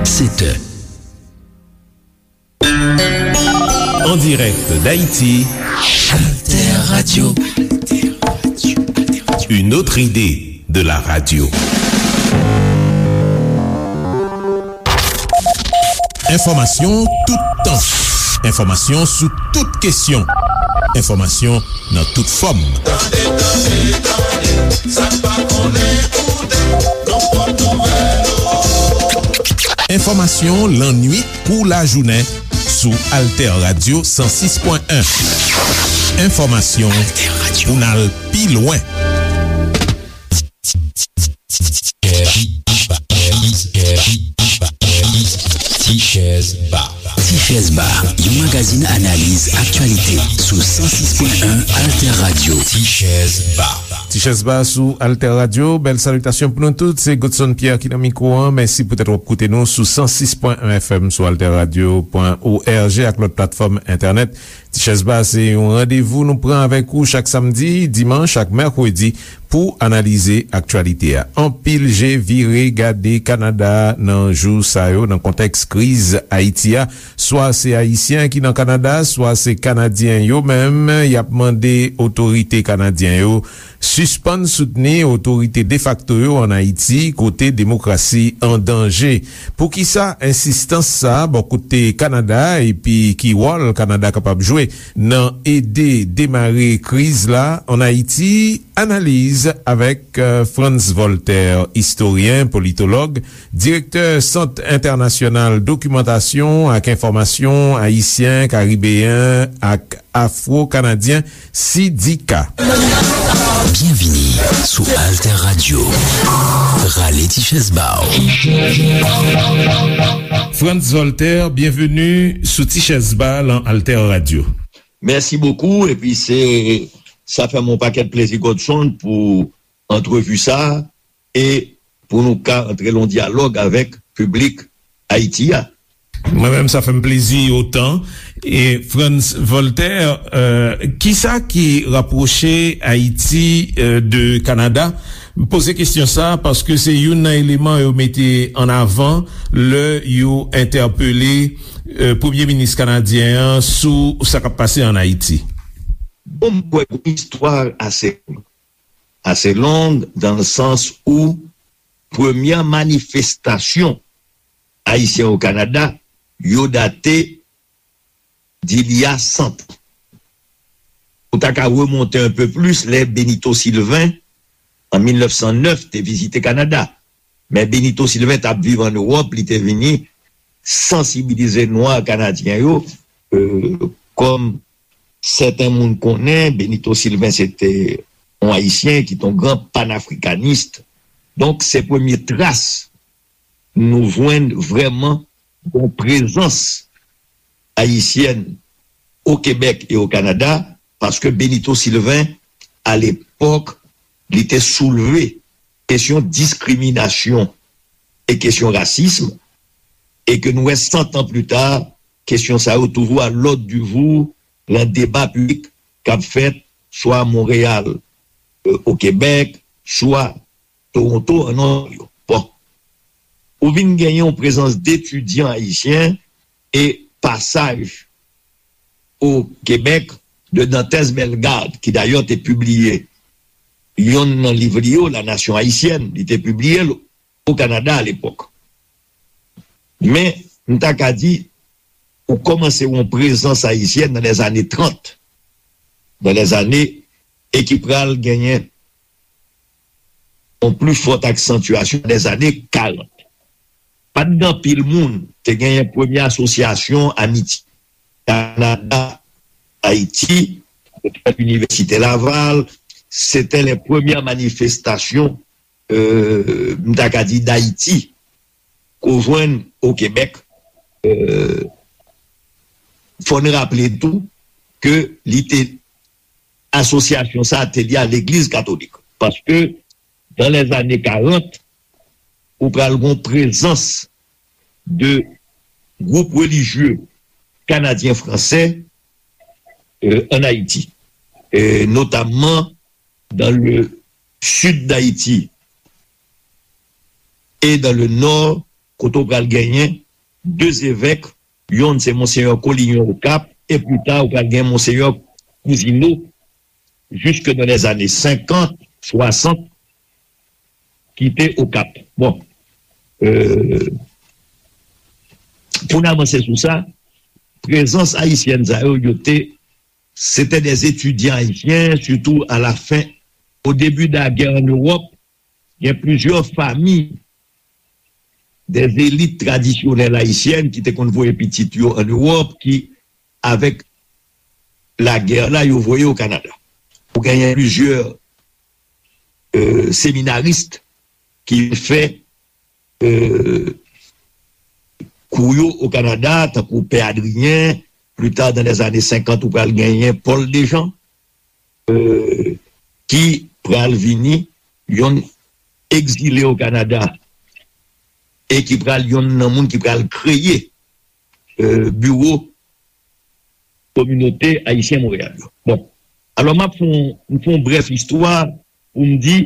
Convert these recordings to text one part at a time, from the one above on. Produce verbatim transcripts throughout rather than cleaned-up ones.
sept heures. En direct d'Haïti, Alter Radio. Une autre idée de la radio. Enfòmasyon toutan. Enfòmasyon sou tout kesyon. Enfòmasyon nan tout fòm. Tande, tande, tande, sa n pa konnen koute, nan pòt nouvèl. Enfòmasyon lannwit kou lajounen sou Alter Radio san sis pwen en. Enfòmasyon pou n al pi lwen. Tichèz Ba. Tichèz Ba, yon magazin analiz aktyalite sou san sis pwen en Alter Radio. Tichèz Ba. Tichèz Ba sou Alter Radio. Bèl salitasyon pou nou tout. Se Godson Pierre ki nan mikwo an. Mèsi poutèt w ap koute nou sou san sis pwen en F M, sou alter radio pwen org ak lòt platfòm entènèt. Tichèz Ba se yon randevou nou pran avèk ou chak samdi, dimanch ak mèkredi pou analize aktyalite a. Anpil je vire gade Kanada nan jou sa yo, nan kontèks kriz Ayiti a. Swa se Ayisyen ki nan Kanada, swa se Kanadyen yo menm, y ap mande otorite kanadyen yo sispann soutni otorite defakto yo ann Ayiti, kote demokrasi an danje. Poukisa ensistans sa a bò kote Kanada, epi ki wòl Kanada kapab jwe nan ede demare kriz la ann Ayiti? Analiz avèk, euh, Frantz Voltaire, istoryen, politològ, direktè Sant Entènasyonal Dokimantasyon ak Enfòmasyon Ayisyen, Karibeyen ak Afwo-Kanadyen, sidika. Byenvini sou Alter Radio. Rale ti chèz ba w. Frantz Voltaire, byenveni sou Ti Chèz Ba lan Alter Radio. Mèsi bokou, epi se, sa fè m yon pakèt plezi, Godson, pou antrevi sa a, e pou nou ka antre lan dyalòg avèk piblik Ayiti a. Mwen menm, sa fè m plezi otan. E Frantz Voltaire, euh, kisa ki rapwoche Ayiti, euh, de Kanada? M poze kesyon sa a paske se youn nan eleman yo mete an avan lè yo entèpele, euh, premye minis kanadyen an sou sa k ap pase ann Ayiti. Bon, m kwè gon istwa ase, ase long, dans le sens où premyè manifestasyon Ayisyen o Kanada, yo date d'il y a cent ans. Ou ta ka remonte un peu plus, lè Benito Sylvain, an mil nèf san nèf, te vizite Kanada. Men Benito Sylvain t ap viv ann Ewòp, li te vini sansibilize nwa kanadyen yo, euh, kòm sèten moun konnen, Benito Sylvain se te yon Ayisyen ki te yon gran panafrikanis. Donk, se premye tras nou jwenn vrèman yon prezans ayisyèn o Kebèk e o Kanada, paske Benito Sylvain, alepòk, li te soulve kesyon diskriminasyon e kesyon rasism, e ke nou wè, san tan pli ta, kesyon sa yo toujou à l'ordre du jour lan deba piblik k ap fèt swa Monreyal, euh, o Kebèk, swa Toronto, an Ontario. Bon. Ou vin genyen yon prezans d etidyan ayisyen e pasaj o Kebèk de Dantès Bellegarde, ki dayè te pibliye yonn nan liv li yo, La Nation Haïtienne, li te pibliye l o Kanada alepòk. Men, m ta ka di, ou kòmanse yon prezans ayisyèn nan lèzane trant, nan lèzane, e ki pral genyen yon pli fòt aksantyasyon nan lèzane karant. Pa t gen anpil moun, te genyen premye asosyasyon amitye Kanada, Ayiti, Inivèsite Laval, se te lè premyè manifestasyon, euh, m ta ka di, Dayiti, ke w jwenn o Kebèk. Euh, fò n raple tou ke li te, asosyasyon sa a te lye a Legliz Katolik. Paske, dans les années quarante, ou pral gon prezans de gwoup relijye kanadyen fransè, euh, en Haïti, euh, notamment dans le sud d'Haïti et dans le nord kote w pral genyen de zevèk, yonn se Monseyè Collignon Okap, e pli ta, w pral gen Monseyè Cousineau, jusque dans les années cinquante, soixante, ki te Okap. Bon, euh, pou n avanse sou sa, prezans ayisyèn sa yo, yo te, se te des étudiants haïtiens, surtout à la fin, au début de la guerre en Europe, gen plizyè fami des élites traditionnelles haïtiennes ki te konn voye pitit yo an Ewòp, ki, avèk lagè la, yo voye o Kanada. Ou genyen plizyè euh, seminaris ki fè euh, kou yo o Kanada, tankou Pè Adrien, pli ta, dans les années cinquante, ou pral genyen Paul Dejean, euh, ki pral vini yon egzile o Kanada e ki pral yon nan moun ki pral kreye euh, biwo kominote ayisyen Monreyal yo. Bon, alò m ap fè yon, m fè yon brèf istwa pou m di,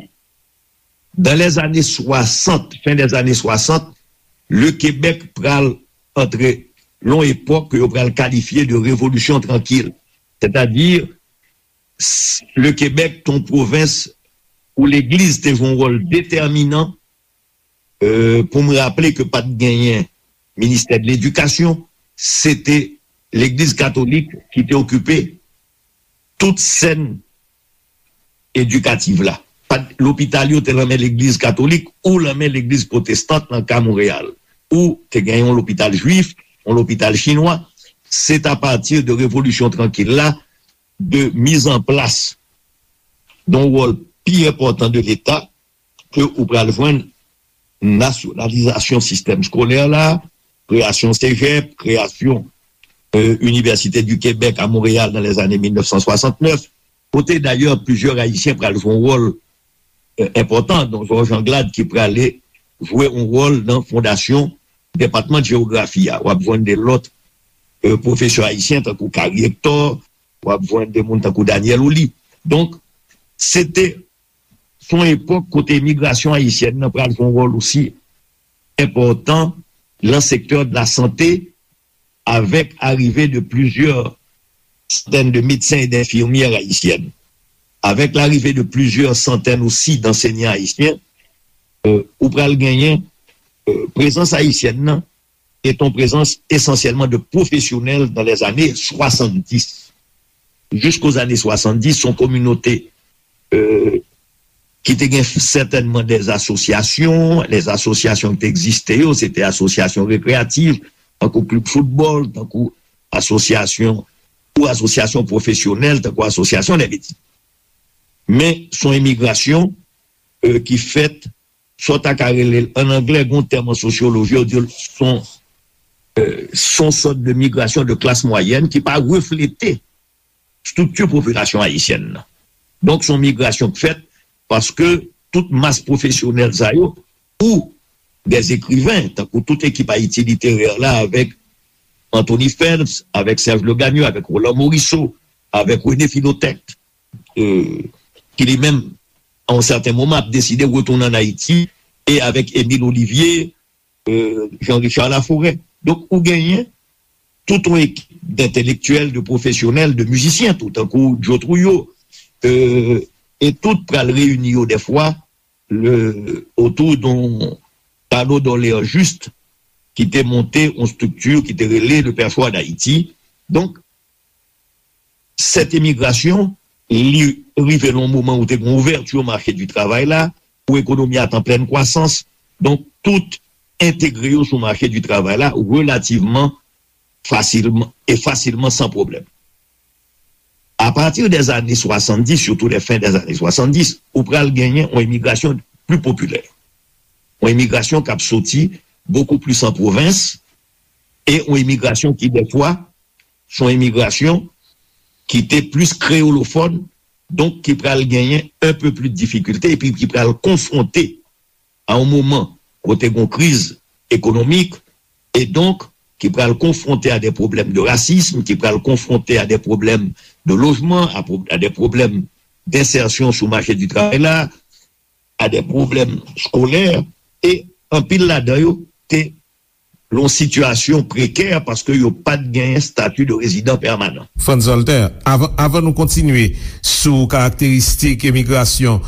dans les années soixante, fin des années soixante, le Québec pral antre lan yon epòk ke yo pral kalifye de révolution tranquille. Sètadi, le Québec te yon pwovens ou legliz te jwe yon wòl detèminan. Euh, pou m raple ke pa t genyen ministè de ledikasyon, se te legliz katolik ki te okipe tout sèn edikatif la. Pa t, lopital yo te nan men legliz katolik ou nan men legliz pwotestan nan ka Monreyal. Ou te gen yon lopital jwif, yon lopital chinwa. Se t apati de revolisyon trankil la, de mizanplas yon wòl pi enpòtan de Leta, ke ou pral jwenn nasyonalizasyon sistèm eskolè la, kreyasyon sejèp, kreyasyon euh, Université du Québec à Montréal dans les années mil nèf san swasannnèf, kote dayè plizyè Ayisyen pral jwe yon wòl euh, enpòtan, dont Georges Anglade ki prale jwe yon wòl nan fondasyon depatman jewografi a. W ap jwenn de lòt euh, pwofesè ayisyen tankou Carrie Hector, w ap jwenn de moun tankou Daniel Ouly. Donk, se te se yon epòk kote imigrasyon ayisyèn nan pral jwe yon wòl osi enpòtan nan sektè de la sante, avèk arive de plizyè santèn de medsen e denfimyè ayisyèn. Avèk larive de plizyè santèn osi dansenyan ayisyen, euh, ou pral genyen euh, prezans ayisyèn nan est une présence essentiellement de professionnels dans les années soixante-dix. Jusqu'aux années soixante-dix, son communauté euh, ki te gen sètènman de asosyasyon, les asosyasyon ki te egziste yo, se te asosyasyon rekreyatif, tankou klib foutbòl, tankou asosyasyon ou asosyasyon pwofesyonèl, tankou asosyasyon de medsen. Men se yon imigrasyon euh, ki fèt sa w ta ka rele l an anglè, gen yon tèm an sosyoloji, yo di l se yon euh, se yon sòt de migrasyon de klas mwayèn ki pa reflete estrikti popilasyon ayisyèn nan. Donk, se yon migrasyon k fèt paske tout mas pwofesyonèl sa yo, ou des écrivains, tankou tout ekip Ayiti literè la, avèk Anthony Phelps, avèk Serge Legagneux, avèk Roland Morisseau, avèk René Philoctète, euh, ki li menm, a yon sèten moman, ap deside retounen ann Ayiti, e avèk Émile Olivier, euh, Jean Richard Laforêt. Donk, ou genyen tout yon ekip d'entèlektyèl, de pwofesyonèl, de mizisyen tou, tankou Joe Trouillot, euh, e tout pral reyini yo dèfwa le, otou d'un panneau d'Orléans Juste ki te monte yon estrikti ki te rele le Perchoir d'Haïti. Donk, sèt imigrasyon, li rive nan yon moman ou te gen ouvèti mache di travay la, ou ekonomi a t an plèn kwasans. Donk, tout entegre yo sou mache di travay la relativman fasilman e fasilman san pwoblèm. Apati dèzane swasanndis, sitou lè fen dèzane swasanndis, ou pral genyen yon imigrasyon pli popilè. Yon imigrasyon k ap soti bokou plis an pwovens e yon imigrasyon ki dèfwa se yon imigrasyon ki te plis kreyolofòn, donk ki pral genyen un peu plus de difikilte epi ki pral konfwonte a yon moman kote gen yon kriz ekonomik e donk ki pral konfwonte a de pwoblèm de rasism, ki pral konfwonte a de pwoblèm de lojman, a, pwo- a de pwoblèm densèsyon sou mache di travay la, a de pwoblèm skolè e anpil ladan yo te yon sitiyasyon prekè paske yo pa t genyen stati de rezidan pèmanan. Frantz Walter, avan, avan nou kontinye sou karakteristik emigrasyon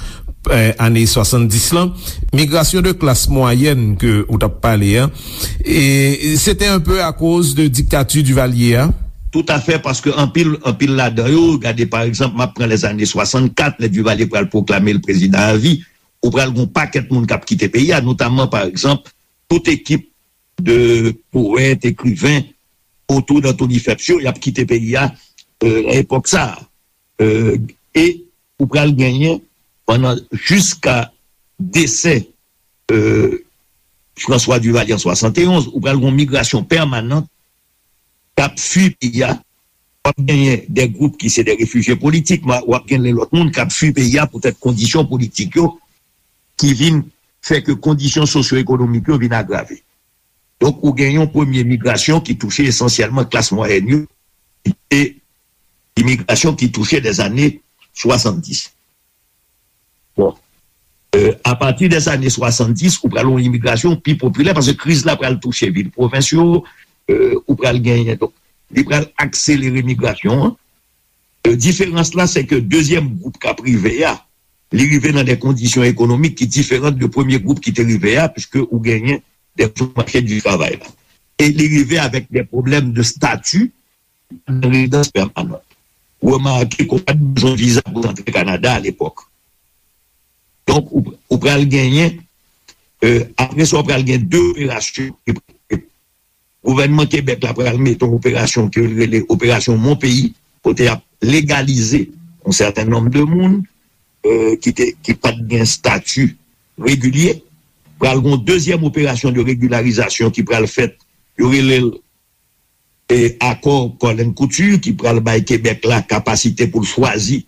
eh, ane swasanndis lan, migrasyon de klas mwayèn ke ou t ap pale a, e se te un peu akoz de diktati Duvalier a. Toutafè, paske anpil, anpil ladan yo, gade pa egzanp, m ap pran lèzane swasannkat, lè Duvalier pral pwoklame l prezidan avi, ou pral gen yon pakèt moun k ap kite peyi a, notamman pa egzanp, tout ekip de powèt, ekriven otou d Anthony Phelps yo, y ap kite peyi a, euh, nan epòk sa a. Euh, e ou pral genyen pandan jiska desè euh, François Duvalier an swasanteonz, ou pral gen yon migrasyon pèmanan k ap fui peyi a. W ap genyen de gwoup ki se de refijye politik, w ap genyen lòt moun k ap fui peyi a poutèt kondisyon politik yo ki vin fè ke kondisyon sosyo-ekonomik yo vin agrave. Donk, ou gen yon premye migrasyon ki touche esansyèlman klas mwayèn yo, ki te imigrasyon ki touche dèzane swasanndis. Bon. Euh, apati dèzane swasanndis, ou pral yon imigrasyon pi popilè, paske kriz la pral touche vil pwovens yo, euh, ou pral genyen. Donk, li pral akselere migrasyon an. Euh, diferans la, se ke dezyèm gwoup k ap rive a, li rive nan de kondisyon ekonomik ki diferan de premye gwoup ki te rive a, piske ou genyen de mache di travay la. E li rive avèk de pwoblèm de stati, nan rezidans pèmanan. Remake ke w pa t bezwen viza pou w antre Kanada alepòk. Donk, ou, ou pral genyen, euh, apre sa, w pral gen de operasyon. Gouvènman Kebèk la pral mete yon operasyon ke l rele Operasyon Mon Pays, kote y ap legalize yon sèten nonb de moun euh, ki, te, ki pa t gen stati regilye. Pral gen yon dezyèm operasyon de regilarizasyon ki pral fèt, yo rele l e akò Colin Couture ki pral bay Kebèk la kapasite pou l chwazi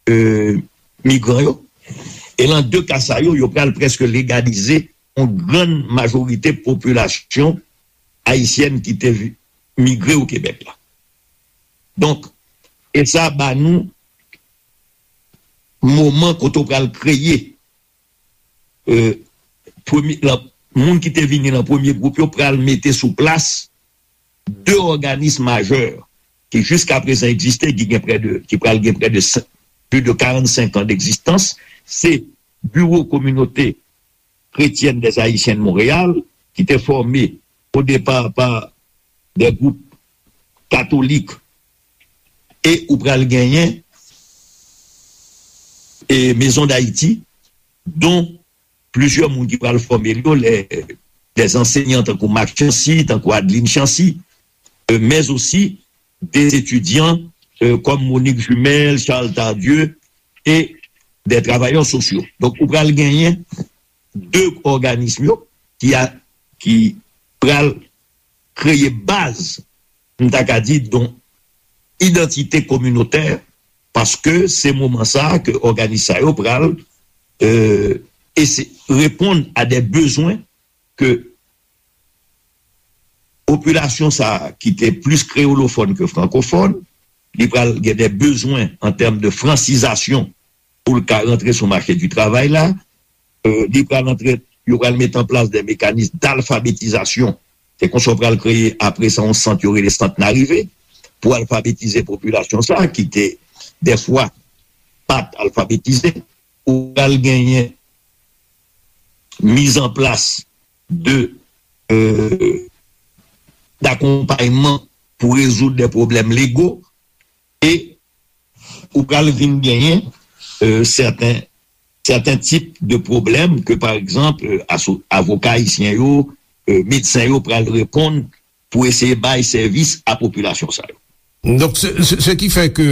euh, migran yo. E nan de ka sa yo, yo pral prèske legalize yon grann majorite popilasyon ayisyèn ki te vi- migre o Kebèk la. Donk, e sa ba nou moman kote w pral kreye euh, premye, la, moun ki te vini nan premye gwoup yo pral mete sou plas de òganis majè ki jiska prezan egziste, ki gen prè de, ki pral gen prè de plis de karannsenk an degzistans, se Biwo Kominote Kretyèn dè Ayisyen de Monreyal, ki te fòme o depa pa de gwoup katolik, e ou pral genyen e Maison d'Haïti, dont plizyè moun ki pral fòme l yo, lè, lè ansèyan tankou Marc Chancy, tankou Adeline Chancy, euh, mais aussi des étudiants euh, comme Monique Jumelle, Charles Tardieu et des travailleurs sociaux. Donk, ou pral genyen de òganis yo ki, a, ki pral kreye baz, m ta ka di, don idantite kominotè, paske se moman sa a ke òganis sa yo pral euh, ese- reponn a de bezwen ke popilasyon sa a ki te plis kreyolofòn ke frankofòn, li pral gen de bezwen an tèm de fransizasyon pou l ka rantre sou mache di travay la. Euh, li pral antre, yo pral mete an plas de mekanis dalfabetizasyon. Se konsa yo pral kreye apre sa yon sant yo rele sant Narive pou alfabetize popilasyon sa a ki te dèfwa pa t alfabetize. Ou pral genyen mizanplas de euh, dakonpayman pou rezoud de pwoblèm lego e ou pral vin genyen euh, sèten sèten tip de pwoblèm ke pa egzanp euh, aso- avoka ayisyen yo, euh, medsen yo pral reponn pou eseye bay sèvis a popilasyon sa yo. Donk, se, se, se ki fè ke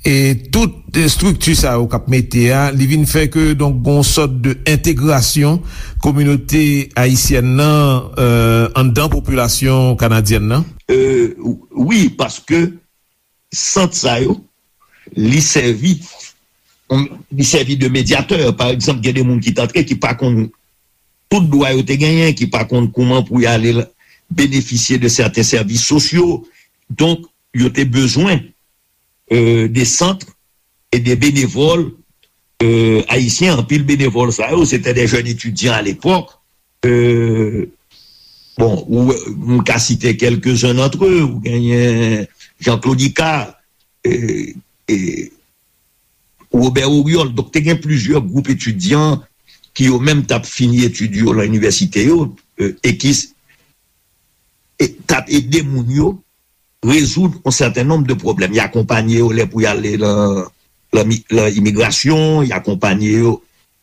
e tout estrikti sa yo k ap mete a, li vin fè ke donk gon sòt de entegrasyon kominote ayisyèn nan euh, anndan popilasyon kanadyèn nan. Euh, wi, paske sant sa yo, li sèvi li sèvi de medyatè. Pa egzanp, gen de moun ki t antre ki pa konn tout dwa yo te genyen, ki pa konn kouman pou y ale benefisye de sèten sèvis sosyo. Donk, yo te bezwen euh, de sant e de benevòl euh, ayisyen. Anpil benevòl sa yo, se te de jèn etidyan alepòk. Euh, Bon, ou, m ka site quelques-uns d'entre eux, ou genyen Jean-Claude Icard, e, e, Robert Oriol. Donk, te gen plizyè gwoup etidyan ki yo menm t ap fini etid yo lan inivèsite yo, e, e ki s- e, t ap ede moun yo rezoud yon sèten nonb de pwoblèm. Y akonpanye yo lè pou y ale lan, lan mi- lan imigrasyon, y akonpanye yo,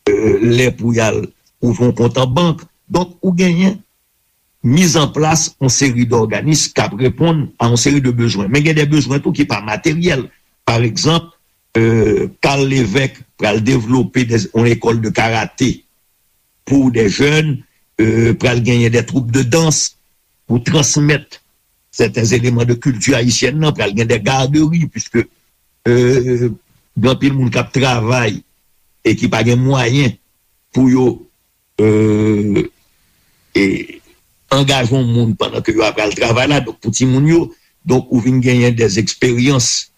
e, lè pou y al ouvri yon kont an bank. Donk, ou genyen mizanplas yon seri dòganis k ap reponn a yon seri de bezwen. Men gen de bezwen tou ki pa materyèl. Pa egzanp, e, Carl Lévesque pral devlope de, yon lekòl de karate pou de jèn, e, pral genyen de twoup de dans pou transmèt sèten eleman de kilti ayisyèn nan, pral gen de gaderi, piske, e, gen anpil moun k ap travay e ki pa gen mwayen pou yo, e, e, angaje yon moun pandan ke yo ap al travay la, donk pou timoun yo, donk ou vin genyen de eksperyans,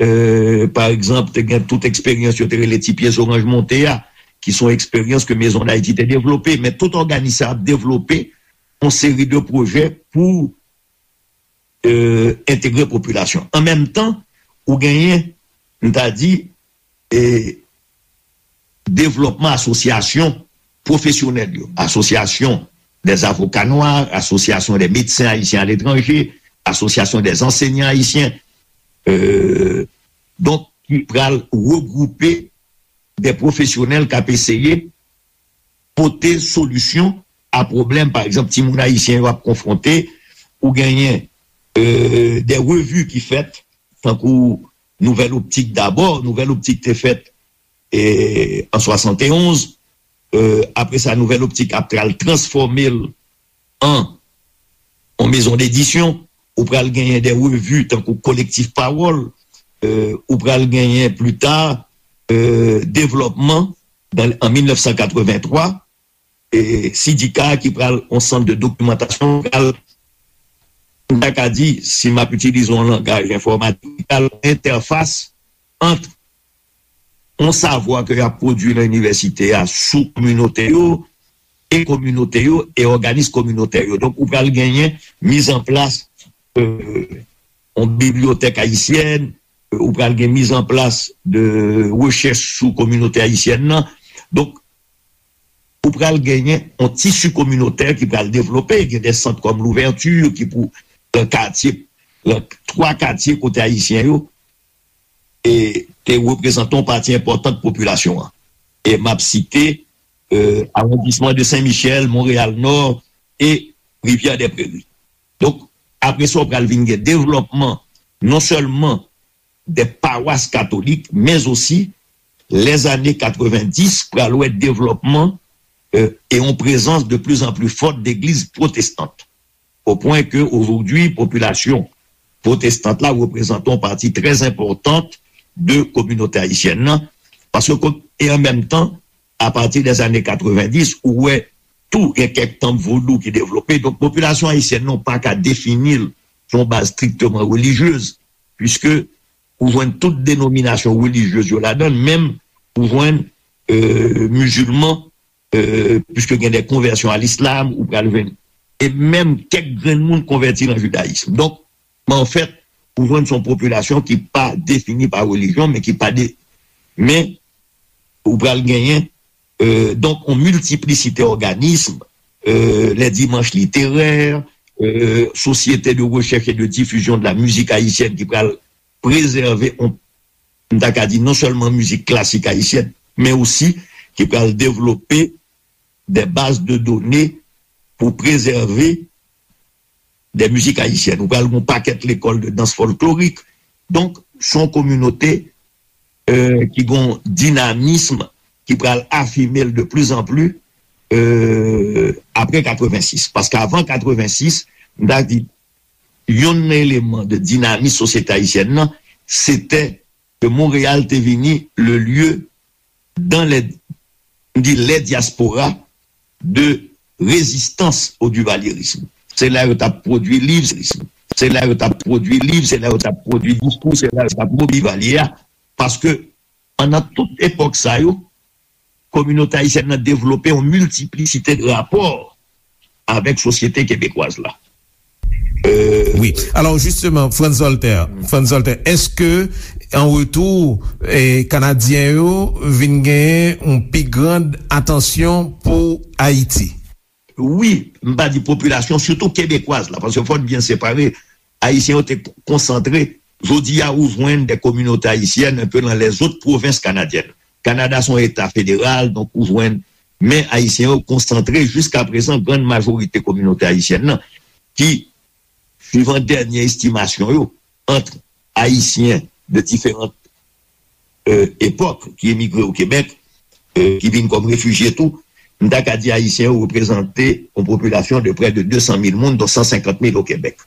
e, pa egzanp, te gen tout eksperyans yo te rele ti pye zoranj monte a, ki se yon eksperyans ke Mezon Dayiti te devlope, men tout òganis sa ap devlope yon seri de pwojè pou, e, entegre popilasyon. An menm tan, ou genyen, m ta di, e, devlòpman asosyasyon pwofesyonèl yo, asosyasyon des avocats noirs, asosyasyon des médecins haïtiens à l'étranger, asosyasyon des enseignants haïtiens, e, donk, ki pral regwoupe de pwofesyonèl k ap eseye pote solisyon a pwoblèm, pa egzanp, timoun ayisyen yo ap konfwonte, ou genyen, e, de revi ki fèt, tankou Nouvèl Optik dabò, Nouvèl Optik te fèt, e, an swasanteonz, e, apre sa, Nouvèl Optik ap pral transfòme l an yon mezon dedisyon, ou pral genyen de revi tankou Kolektif Pawòl, e, ou pral genyen pli ta, e, Devlòpman, dan, an mil nèf san katrevenntwa, e, Sidika ki pral yon sant de dokimantasyon, pral, m ta ka di, si m ap itilize yon langaj enfòmatik, pral entèfas ant yon savwa ke y ap pwodui nan inivèsite a sou kominote yo, e kominote yo, e òganis kominotè yo. Donk, ou pral genyen mizanplas, e, yon bibliyotèk ayisyèn, e, ou pral gen mizanplas de rechèch sou kominote ayisyèn nan. Donk, ou pral genyen yon tisi kominotè ki pral devlope, gen de sant kòm Louverture ki pou, nan katye, nan twa katye kote ayisyen yo, e te reprezante yon pati enpòtan popilasyon an. E m ap site, e, awondisman de Sen Michèl, Monreyal Nò e Rivyè dè Preri. Donk, apre sa, w pral vin gen devlòpman non sèlman de pawas katolik, men osi, lèzane katrevendis pral wè devlòpman, e, e yon prezans de plus en plus forte de legliz pwotestant. Au point que aujourd'hui, popilasyon pwotestant la reprezante yon pati trè enpòtan de kominote ayisyèn nan, paske, e an menm tan, apati dèzane katrevendis, ou wè tou gen kèk tanp vodou ki devlope. Donk, popilasyon ayisyèn nan, ou pa ka defini l sou yon baz strikteman relijyez, piske ou jwenn tout denominasyon relijyez yo ladan l, menm ou jwenn, e, mizilman, e, piske gen de konvèsyon a lislam, ou pral jwenn, e menm kèk grenn moun konvèti nan jidayis. Donk, men anfèt, ou jwenn se yon popilasyon ki pa defini pa relijyon, men ki pa de, men ou pral genyen, e, donk, yon miltiplisite òganis, e, les dimanches littéraires, e, Société de recherche et de diffusion de la musique haïtienne ki pral prezève, yon, m ta ka di, non sèlman mizik klasik ayisyèn, men osi ki pral devlope de baz de done pou prezève de mizik ayisyèn. Ou pral gen yon pakèt lekòl de dans folklorik. Donk, se yon kominote, e, ki gen yon dinamis ki pral afime l de plus en plus, e, apre katrevensis. Paske avan katrevensis, m ta di, yonn nan eleman de dinamis sosyete ayisyèn nan, se te ke Monreyal te vini le lieu dans les, m di, les diasporas de résistance au duvalierisme. Se la yo t ap pwodui liv, se la yo t ap pwodui liv, se la yo t ap pwodui diskou, se la yo t ap mobilize Divalye a. Paske, pandan tout epòk sa yo, kominote ayisyèn nan devlope yon miltiplisite de rapò avèk sosyete kebekwaz la. Euh, Wi. Alò, jisteman, Frantz Voltaire, Frantz Voltaire, èske an retou, eh, Kanadyen yo vin genyen yon pi grand atansyon pou Ayiti? Wi, m pa di popilasyon, sitou kebekwaz la, paske fò n byen separe, Ayisyen yo te konsantre. Jodi a, ou jwenn de kominote ayisyèn enpe nan lèzòt pwovens kanadyèn. Kanada se yon eta federal, donk ou jwenn, men Ayisyen yo konsantre jiska prezan, grann majorite kominote ayisyèn nan, ki, suivan dènye estimasyon yo, ant Ayisyen de diferan euh, epòk ki emigre o Kebèk, euh, ki vin kòm refijye tou, m ta ka di Ayisyen yo reprezante yon popilasyon de prè de de san mil moun, dont san senkant mil o Kebèk,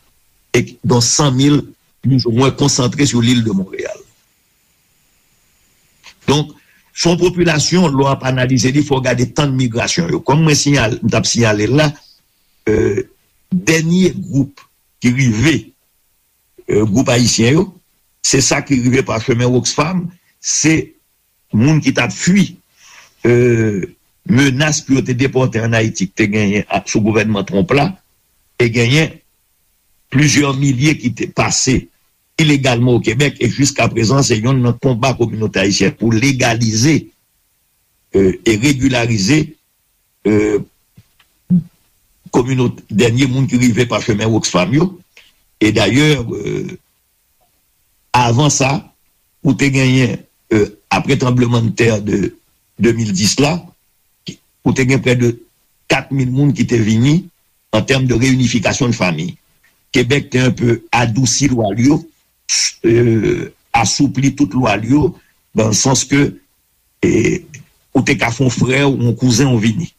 e dont san mil plizoumwen konsantre sou lil de Monreyal. Donk, se yon popilasyon, lè w ap analize li, fò w gade tan de migrasyon yo. Kòm mwen siyal, m t ap siyale l la, euh, dènye gwoup ki rive, euh, gwoup ayisyen yo, se sa ki rive pa chemen Oxfam, se moun ki t ap fui, euh, menas pou yo te depòte ann Ayiti ki te genyen sou gouvènman Trump la, e genyen plizyè milye ki te pase ilegalman o Kebèk, e jiska prezan se yonn nan konba kominote ayisyèn pou legalize, euh, e regilarize, euh, kominote, dènye moun ki rive pa chemen Oxfam yo. E dayè, euh, avan sa, ou te genyen, euh, apre tranblemanntè de de mil dis la, ou te gen prè de kat mil moun ki te vini an tèm de reyinifikasyon de fanmi. Kebèk te enpe adousi lwa l yo, euh, asoupli tout lwa l yo, nan sans ke, e, ou te ka fè yon frè w, yon kouzen w vini.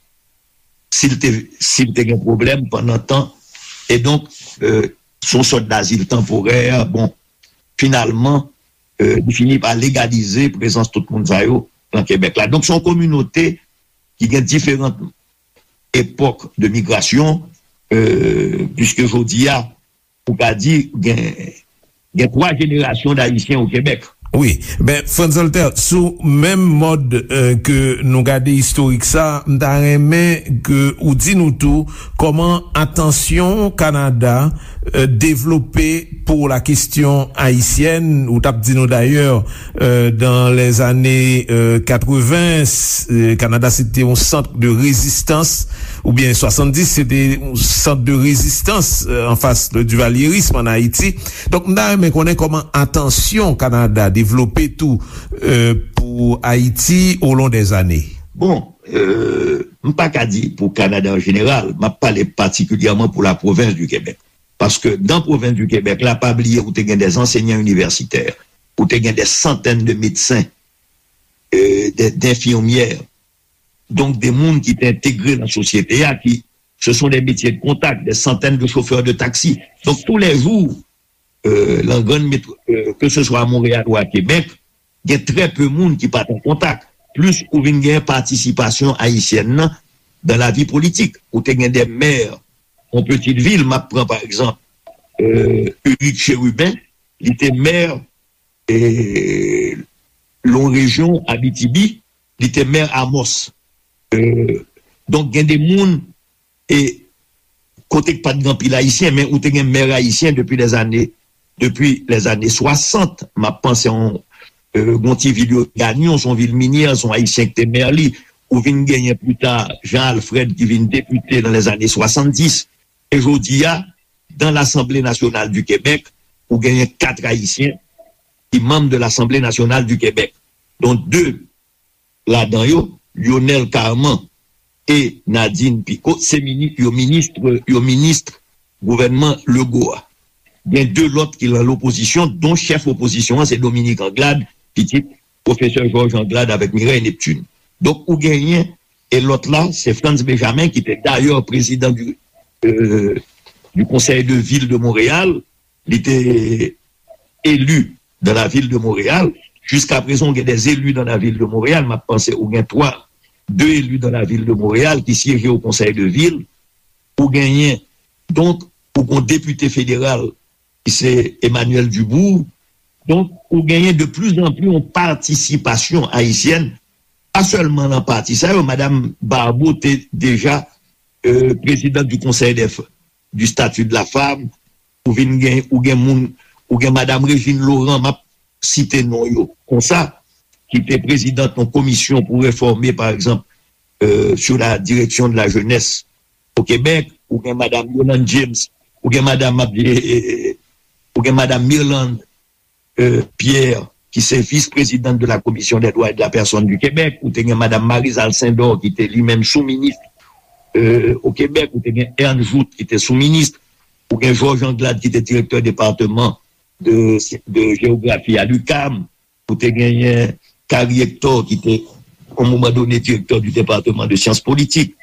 Si l te, si l te gen pwoblèm pandan tan. E donk, euh, se yon sòt dazil tanporè, bon, finalman, euh, li fini pa legalize prezans tout moun sa yo nan Kebèk la. Donk, se yon kominote ki gen diferan epòk de migrasyon, euh, puiske jodi a, ou ka di, gen, gen twa jenerasyon d Ayisyen o Kebèk. Wi, ben, Frantz Voltaire, sou menm mòd, euh, ke nou gade istorik sa, m ta renmen ke ou di nou tou kòman atansyon Kanada, euh, devlope pou la kesyon ayisyèn. Ou t ap di nou dayè, euh, dans les années, euh, quatre-vingts, euh, Kanada se te yon sant de rezistans, oubyen swasanndis, se te yon sant de rezistans, euh, an fas de divalyerism an Ayiti. Donk, m ta renmen konnen kòman atansyon Kanada devlope tou, euh, pou Ayiti au long des années. Bon, euh, m pa ka di pou Kanada an jeneral, m ap pale patikilyèman pou la pwovens di Kebèk. Paske dan pwovens di Kebèk la, pa bliye ou te gen de ansenyan inivèsitè, ou te gen de santèn de medsen, euh, de, d'infirmières. Donk, de moun ki te entegre nan sosyete a, ki, ce sont des métiers de contact, des centaines de chauffeurs de taxi. Donk, tous les jours, euh, nan grann metro, euh, ke se swa a Monreyal ou a Kebèk, gen trè pe moun ki pa t an kontak. Plis ou vin gen patisipasyon ayisyèn nan dan lavi politik. Ou te gen de mè yon pitit vil, m ap pran pa egzanp, euh, Ulrich Chérubin, li te mè, e, yon rejyon Abitibi, li te mè Amos. Euh, donk, gen de moun, e, kote k pa t gen anpil Ayisyen, men ou te gen mè ayisyen depi lèzane, depi lèzane swasant. M ap panse yon, euh, yon ti vil yo Gagnon, se yon vil minyè, se yon Ayisyen ki te mè li. Ou vin genyen pli ta Jean Alfred ki vin depite nan lèzane swasanndis. E jodi a, dan Lasanble Nasyonal di Kebèk, ou genyen kat Ayisyen ki manm de Lasanble Nasyonal di Kebèk, dont de ladan yo, Lyonel Carman e Nadine Picot, se mini-, yo minis, yo minis gouvènman Legault a. Gen de lòt ki nan lopozisyon, don chèf opozisyon an se Dominique Anglade, pitit pwofesè Georges Anglade avèk Mireille Neptune. Donk, ou genyen, e lòt la, se Frantz Benjamin, ki te dayè prezidan du, euh, du Conseil de Ville de Montréal, li te eli dans la ville de Montréal. Jiska prezan, gen de eli dans la ville de Montréal. M ap panse ou gen twa, de eli dans la ville de Montréal ki syeje o Konsèy de Vil. Ou genyen, donk, ou gen depite federal ki se Emmanuel Dubourg. Donk, ou genyen de plus en plus yon patisipasyon ayisyèn, pa sèlman nan pati sa yo, Madanm Barbeau te deja euh, présidente du Conseil des f- du statut de la femme, ou vin gen, ou gen moun, ou gen Madame Régine Laurent, m ap site non yo konsa, ki te présidente yon komisyon pou réformer, par exemple, euh, sur la direction de la jeunesse au Québec, ou gen Madame Yolande James, ou gen Madame, ou gen Madame Mirlande euh, Pierre, ki se vis-présidente de la Commission des droits de la personne du Québec, ou te gen Madame Marise Alcindor, ki te li menm sou-minis, euh, au Québec, ou te gen Ern Jouthe, ki te sou-minis, ou gen Georges Anglade, ki te direktè depatman de, de jewografi a l'UQAM, ou te genyen Carrie Hector, ki te, au moment donné, directeur du département de sciences politiques,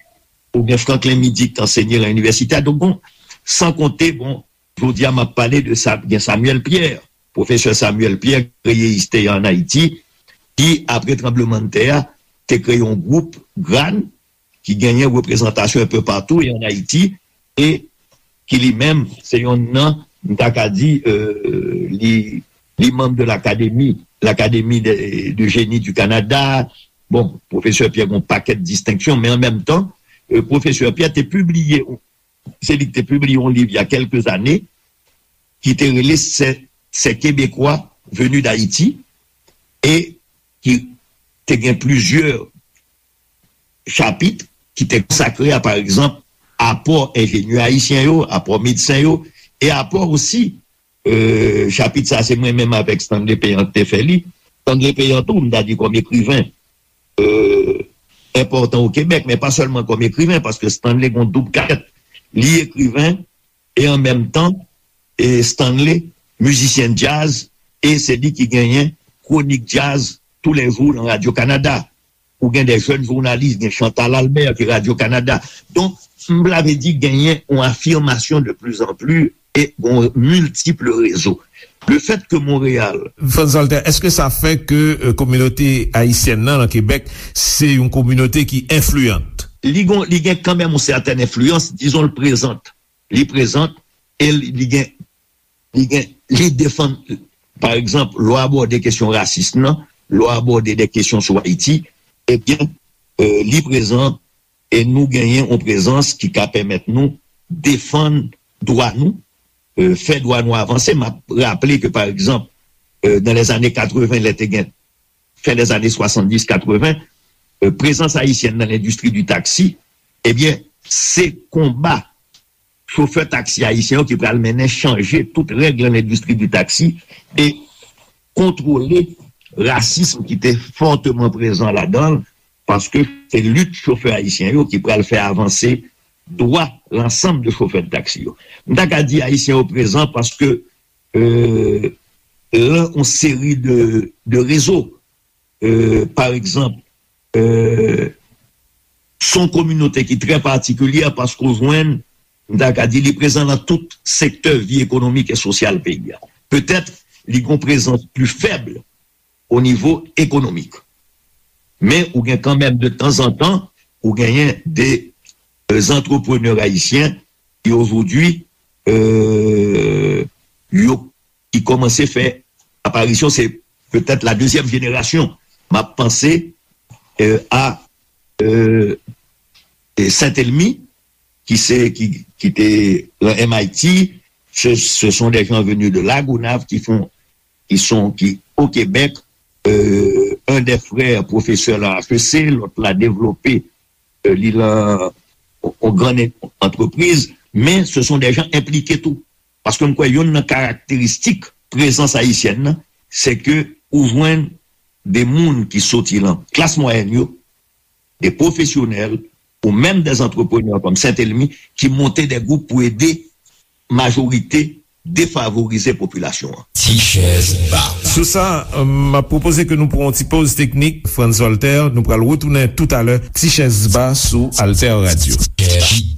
ou gen Franklin Midy, ki te ansenye nan inivèsite a. Donk, bon, san konte, bon, jodi a, m ap pale de sa, gen Samuel Pierre, pwofesè Samuel Pierre, kreye ISTEA an Ayiti, ki, apre tranblemanntè a, te kreye yon gwoup, GRAN, ki genyen reprezantasyon enpe patou e an Ayiti, e ki li menm, se yon nan, m ta ka di, euh, li, li manm de l'Académie, l'Académie de, de Génie du Canada. Bon, pwofesè Pierre gen yon pakèt distenksyon, men an menm tan, euh, pwofesè Pierre te pibliye, se li ki te pibliye yon liv il y a quelques années, ki te rele Ces, Ces Québécois venus d'Haïti, e ki te gen plizyè chapit ki te konsakre a, pa egzanp, apò enjenyè ayisyen yo, apò medsen yo, e apò osi, euh, chapit sa se mwen menm avèk Stanley Péan ki te fè li. Stanley Péan tou, m ta di kòm ekriven, euh, enpòtan o Kebèk, men pa sèlman kòm ekriven, paske Stanley gon doub kaskèt. Li ekriven, e an menm tan, e Stanley, mizisyen djaz, e se li ki genyen kwonik djaz toulejou nan Radio Canada. Ou gen de jèn jounalis, gen Chantal Albert ki Radio Canada. Donk, m vle di genyen yon afirmasyon de plus en plus e yon miltip rezo. Le fait que Montréal. Frantz Walter, èske sa fè ke euh, kominote ayisyèn nan nan Kebèk se yon kominote ki enfliyan? Li gon, li gen kanmenm yon sètèn enfliyans, dizon l prezan. Li prezan e li, li gen, li gen, li defann, pa egzanp, lè w abòde kesyon rasis nan, lè w abòde de kesyon sou Ayiti, ebyen, euh, li prezan e nou genyen yon prezans ki ka pèmèt nou defann dwa nou, euh, fè dwa nou avanse. M ap raple ke, pa egzanp, euh, dans les années quatre-vingts, lè te gen, fin des années soixante-dix quatre-vingts, euh, prezans ayisyèn nan lendistri di taksi, ebyen, se konba chofè taksi ayisyen yo ki pral mennen chanje tout règ nan lendistri di taksi e kontwole rasism ki te fòteman prezan ladan l, paske se lit chofè ayisyen yo ki pral fè avanse dwa lansanm de chofè de taksi yo. M ta ka di ayisyen yo prezan paske euh, lan yon seri de, de rezo. Euh, pa egzanp, euh, se yon kominote ki trè patikilye paske w jwenn, m ta ka di, li prezan nan tout sektè vi ekonomik e sosyal peyi a. Petèt, li gen yon prezans pli fèb o nivo ekonomik. Men ou gen kanmenm de tanzantan, ou genyen de euh, antreprenè ayisyen ki ojodwi euh, yo ki kòmanse fè aparisyon, se petèt la dezyèm jenerasyon. M ap panse euh, a euh, Saint-Elmy, ki se ki, ki te lan M I T, ce, ce sont des gens venus de La Gonâve qui font, qui sont, qui au Québec, euh, un des frères professeur lan H E C, lòt la devlope euh, li lan yon gran antrepriz, men se son de jan enplike tou. Paske m kwè youn nan karakteristik prezans ayisyèn nan, se ke ou jwenn de moun ki soti lan klas mwayèn yo, de pwofesyonèl, ou menm de antreprenè kòm Saint-Elmy, ki monte de gwoup pou ede majorite defavorize popilasyon an. Ti chèz ba. Sou sa, m ap pwopoze ke nou pran yon ti poz teknik, Frantz Walter, nou pral retounen toutalè, Ti chèz ba sou Alter Radio.